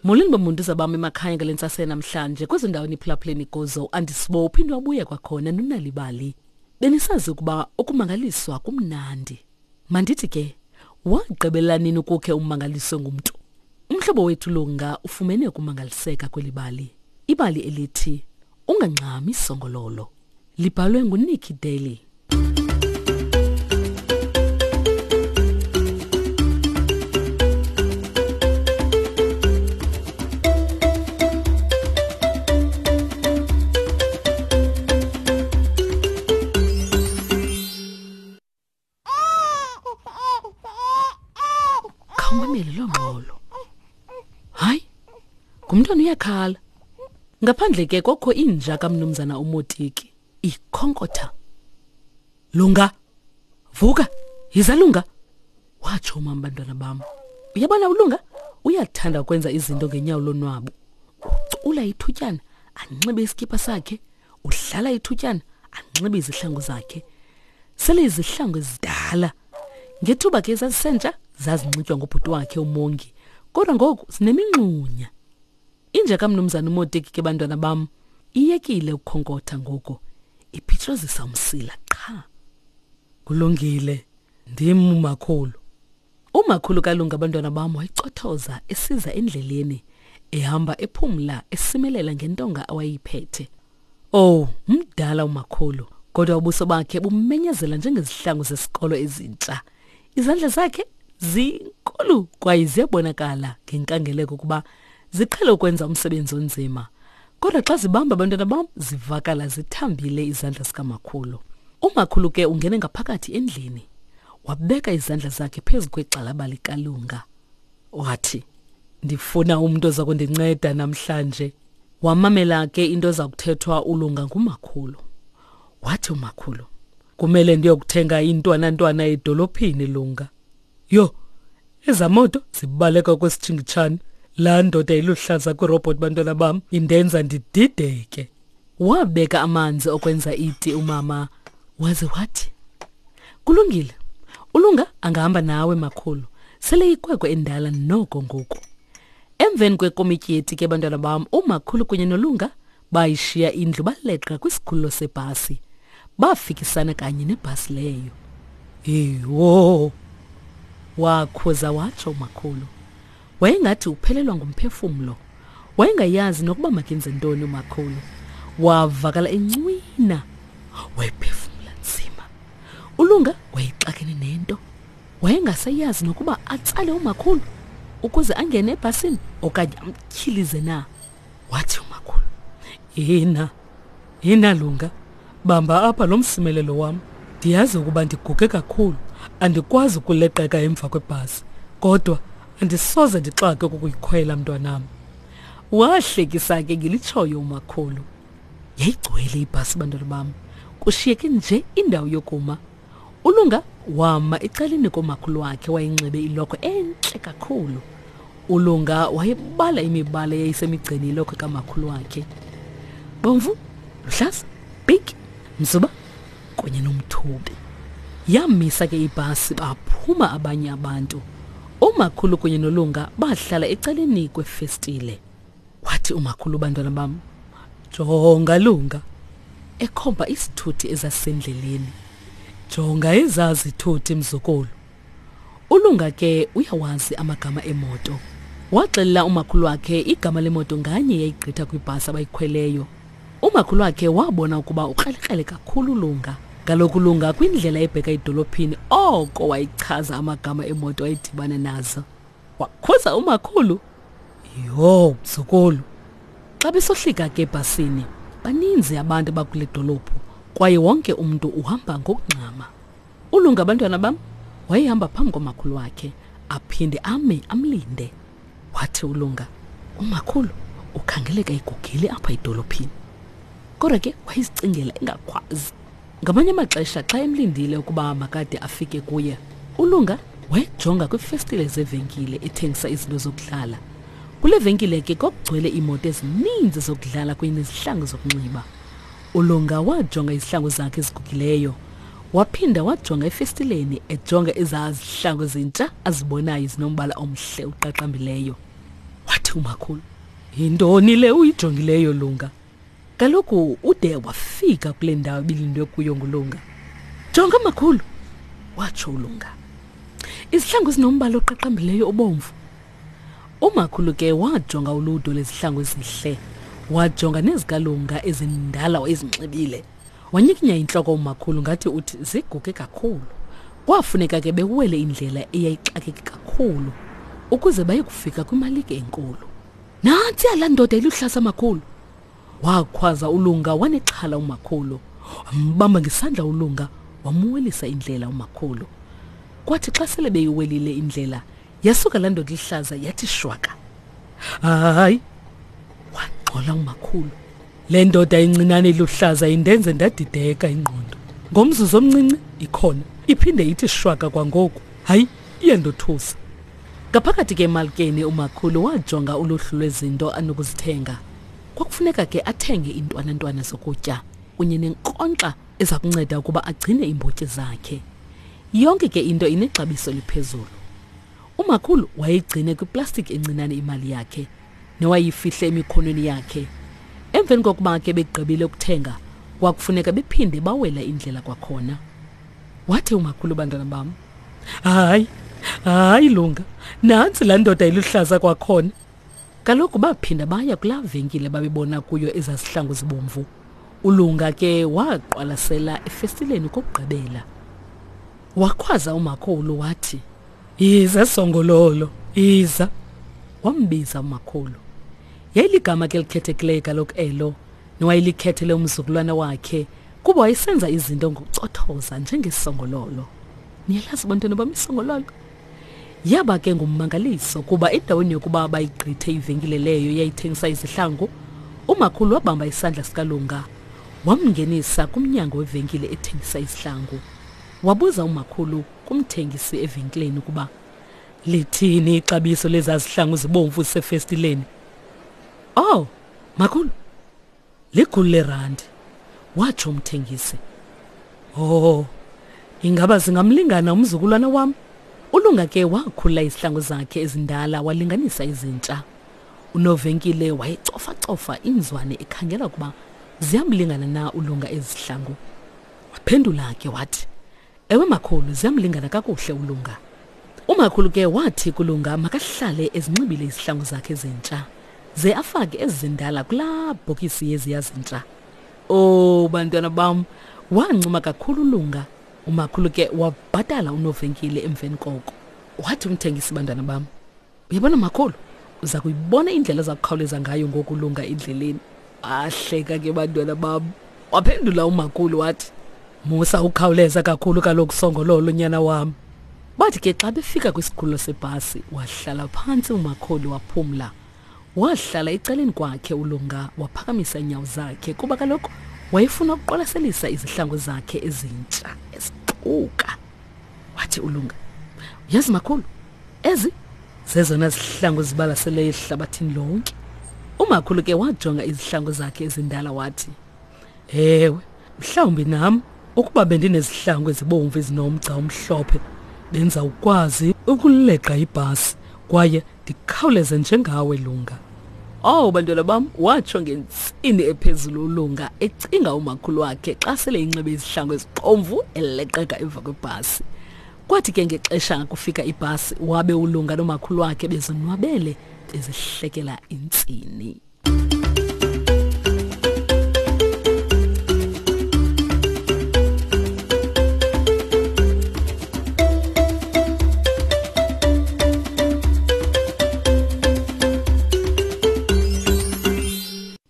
Molweni bomuntu zabam emakhaya ngale ntsasa namhlanje kwezo ndawo niphulaphuleni kuzo andisibo uphinde wabuya kwakhona nonalibali. Benisazi ukuba ukumangaliswa kumnandi. Mandithi ke wagqibela nini ukukhe umangaliswe ngumntu? Umhlobo wethu Lunga ufumene ukumangaliseka kweli bali. Ibali elithi Ungangxami Songololo libhalwe nguNikki Daly. Khawumamele loo ngxolo. Hayi, ngumntwana uyakhala. Ngaphandle ke kokho inja kamnumzana uMotiki ikhonkotha. Lunga, vuka, yiza Lunga. Watsho umama bantwana bam. Uyabona uLunga uyathanda ukwenza izinto ngenyawo lonwabo. Ucula ithutyana anxibe isikipha sakhe udlala ithutyana anxibe izihlangu zakhe sele izihlangu ezidala ngethuba ke zazisentsha zazinxitywa ngubhuti wakhe umongi kodwa ngoku zinemingxunya inja kamnumzana umotiki ke bantwana bam iyekile ukukhonkotha ngoku iphitshozisa umsila qha kulungile ndim umakhulu Umakhulu kaLunga abantwana bam wayicothoza esiza endleleni ehamba ephumla esimelela ngentonga awayiphethe. Oh, mdala umakhulu, kodwa ubuso bakhe bumenyezela njengezihlangu zesikolo ezintsha. Izandla zakhe zinkulu kwaye ziyabonakala ngenkangeleko ukuba ziqhele ukwenza umsebenzi onzima. Kodwa xa zibamba abantwana bam zivakala zithambile izandla zikamakhulu. Umakhulu ke ungene ngaphakathi endlini. Wabeka izandla zakhe phezu kwegxalaba likalunga. Wathi, ndifuna umntu oza kundinceda namhlanje. Wamamela ke into eza kuthethwa ulunga ngumakhulu. Wathi umakhulu, kumele ndiyokuthenga intwanantwana edolophini lunga. Yho, eza moto zibaleka kwesitshingitshane. Laa ndoda iluhlaza kwirobhoti bantwana bam indenza ndidideke. Wabeka amanzi okwenza iti umama waze wathi, Kulungile. Ulunga angahamba nawe makhulu. Sele ikwekwe endala noko ngoku. Emveni kwekomityi yeti ke bantwana bam umakhulu kunye nolunga bayishiya indlu baleqa kwisikhululo sebhasi. Bafikisana kanye nebhasi leyo. Yho! Wakhuza watsho umakhulu. Wayengathi uphelelwa ngumphefumlo. Wayengayazi nokuba makenze ntoni umakhulu. Wavakala encwina. Wayephefumla nzima. Ulunga wayexakene nento. Wayengasayazi nokuba atsale umakhulu ukuze angene ebhasini okanye amtyhilize na. Wathi umakhulu, "Yina, yina Lunga, bamba apha lo msimelelo wam. Ndiyazi ukuba ndiguge kakhulu, andikwazi ukuleqeka emva kwebhasi, kodwa andisoze ndixake ukukuyikhwela mntwanam." Wahlekisa ke ngelitshoyo umakhulu. Yayigcwele ibhasi bantwana bam, kushiyeke nje indawo yokuma. Ulunga wama ecaleni komakhulu wakhe wayenxibe ilokhwe entle kakhulu. Ulunga wayebala imibala eyayisemigceni yelokhwe kamakhulu wakhe. Bomvu, luhlaza, pinki, mzuba kunye nomthubi. Yamisa ke ibhasi baphuma abanye abantu. Umakhulu kunye nolunga bahlala ecaleni kwefestile. Wathi umakhulu bantwana bam, jonga Lunga, ekhomba isithuthi ezasendleleni. Jonga ezaa zithuthi mzukulu. Ulunga ke uyawazi amagama emoto. Waxelela umakhulu wakhe igama lemoto nganye yayigqitha kwibhasi abayikhweleyo. Umakhulu wakhe wabona ukuba ukrelekrele kakhulu uLunga. Kaloku uLunga kwindlela ebheka edolophini oko wayichaza amagama emoto ayidibane nazo. Wakhuza umakhulu. Yho, mzukulu. Xa besohlika ke ebhasini, baninzi abantu abakule dolophu kwaye wonke umntu uhamba ngokungxama. Ulunga abantwana bam wayehamba phambi komakhulu wakhe aphinde ame amlinde. Wathi uLunga, umakhulu ukhangeleka egugile apha edolophini. Kodwa ke wayezicingela engakhwazi. Ngamanye amaxesha xa emlindile ukuba makade afike kuye, uLunga wayejonga kwiifestile zevenkile ethengisa izinto zokudlala. Kule venkile ke kwakugcwele iimoto ezininzi zokudlala kunye nezihlangu zokunxiba. ULunga wajonga izihlangu zakhe ezigugileyo. Waphinda wajonga efestileni ejonga ezaa zihlangu zintsha azibonayo zinombala omhle uqaqambileyo. Wathi umakhulu, yintoni le uyijongileyo Lunga? Kaloku ude wafika kule ndawo ibilindwe kuyo nguLunga. Jonga makhulu, watsho uLunga. Izihlangu ezinombala oqaqambileyo obomvu. Umakhulu ke wajonga uludwe lwezihlangu ezihle, wajonga nezikalunga ezindala wayezinxibile. Wanyikinya intloko umakhulu ngathi uthi ziguge kakhulu. Kwafuneka ke bewele indlela eyayixakeke kakhulu ukuze baye kufika kwimalike enkulu. Nantsi laa ndoda iluhlaza makhulu. Wakhwaza uLunga wanexhala umakhulu. Wambamba ngesandla uLunga wamuwelisa indlela umakhulu. Kwathi xa sele beyiwelile indlela yasuka laa ndoda ihlaza yathi shwaka. Hayi, wangxola umakhulu. Le ndoda incinane iluhlaza indenze ndadideka ingqondo. Ngomzuzu omncinci ikhona iphinde ithi shwaka kwangoku. Hayi, iyandothusa. Ngaphakathi ke emalkeni umakhulu wajonga uluhlu lwezinto anokuzithenga. Kwakufuneka ke athenge iintwanantwana zokutya kunye nenkonkxa eza kunceda ukuba agcine iimbotyi zakhe. Yonke ke into inexabiso eliphezulu. Umakhulu wayeyigcine kwiplastiki encinane imali yakhe newayifihle emikhonweni yakhe. Emveni kokuba ke begqibile ukuthenga, kwakufuneka bephinde bawela indlela kwakhona. Wathi umakhulu, bantwana bam, hayi, hayi Lunga, nantsi laa ndoda iluhlaza kwakhona. Kaloku baphinda baya kulaa venkile babebona kuyo ezaa zihlangu zibomvu. ULunga ke waqwalasela efestileni kokugqibela. Wakhwaza umakhulu wathi, Yiza Songololo, yiza. Wambiza umakhulu. Yayiligama ke elikhethekileyo kaloku elo, nowayelikhethele umzukulwana wakhe kuba wayesenza izinto ngokucothoza njengesongololo. Niyalazi bantwana bam isongololo? Yaba ke ngummangaliso kuba endaweni yokuba bayigqithe ivenkile leyo yayithengisa izihlangu, umakhulu wabamba isandla sikaLunga wamngenisa kumnyango wevenkile ethengisa izihlangu. Wabuza umakhulu kumthengisi evenkileni ukuba lithini ixabiso lezaa zihlangu zibomvu zisefestileni. Oh, makhulu, likhulu lerandi, watsho umthengisi. Oh, ingaba zingamlingana umzukulwana wam? ULunga ke wakhulula izihlangu zakhe ezindala walinganisa izintsha. Unovenkile wayecofacofa iinzwane ekhangela ukuba ziyamlingana na uLunga ezi zihlangu. Waphendula ke wathi, Ewe makhulu, ziyamlingana kakuhle uLunga. Umakhulu ke wathi kuLunga makahlale ezinxibile izihlangu zakhe ezintsha, ze afake ezi zindala kulaa bhokisi yeziya zintsha. Oh bantwana bam, wancuma kakhulu uLunga. Umakhulu ke wabhatala unovenkile emveni koko. Wathi umthengisi, bantwana bam, Uyabona makhulu, uza kuyibona indlela oza kukhawuleza ngayo ngoku ulunga endleleni. Wahleka ke bantwana bam. Waphendula umakhulu wathi, Musa ukhawuleza kakhulu kaloku Songololo nyana wam. Bathi ke xa befika kwisikhululo sebhasi, wahlala phantsi umakhulu waphumla. Wahlala ecaleni kwakhe uLunga waphakamisa iinyawo zakhe kuba kaloku wayefuna ukuqwalaselisa izihlangu zakhe ezintsha ezixuka. Wathi uLunga, Uyazi makhulu, ezi zezona zihlangu zibalaseleyo ehlabathini lonke. Umakhulu ke wajonga izihlangu zakhe ezindala wathi, Ewe, mhlawumbi nam ukuba bendinezihlangu ezibomvu ezinomgca omhlophe benza ukwazi ukuleqa ibhasi kwaye ndikhawuleze njengawe Lunga. Oh bantwana bam, watsho ngentsini ephezulu uLunga ecinga umakhulu wakhe xa sele inxibe izihlangu ezibomvu eleqeka emva kwebhasi. Kwathi ke ngexesha kufika ibhasi wabe uLunga nomakhulu wakhe bezonwabele bezihlekela intsini.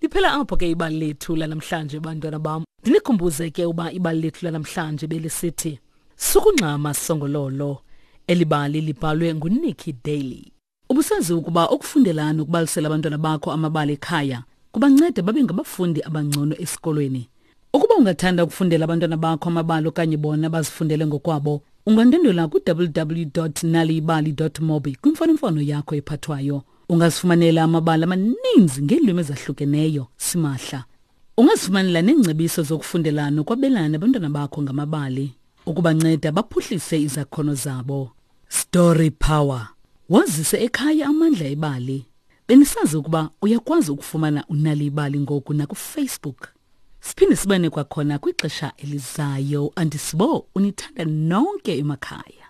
Liphela apho ke ibali lethu lanamhlanje bantwana bam. Ndinikhumbuze ke uba ibali lethu lanamhlanje belisithi Sukungxama Songololo. Eli bali libhalwe nguNikki Daly. Ubusazi ukuba ukufundela nokubalisela abantwana bakho amabali ekhaya kubanceda babe ngabafundi abangcono esikolweni. Ukuba ungathanda ukufundela abantwana bakho amabali okanye bona bazifundele ngokwabo, ungandwendwela ku-www.naliyibali.mobi kwimfonomfono yakho ephathwayo. Ungazifumanela amabali amaninzi ngeelwimi ezahlukeneyo simahla. Ungazifumanela neengcebiso zokufundela nokwabelana nabantwana bakho ngamabali ukubanceda baphuhlise izakhono zabo. Story Power. Wazise ekhaya amandla ebali. Benisazi ukuba uyakwazi ukufumana uNal'ibali ngoku nakuFacebook? Siphinde sibane kwakhona kwixesha elizayo. Andisibo unithanda nonke emakhaya.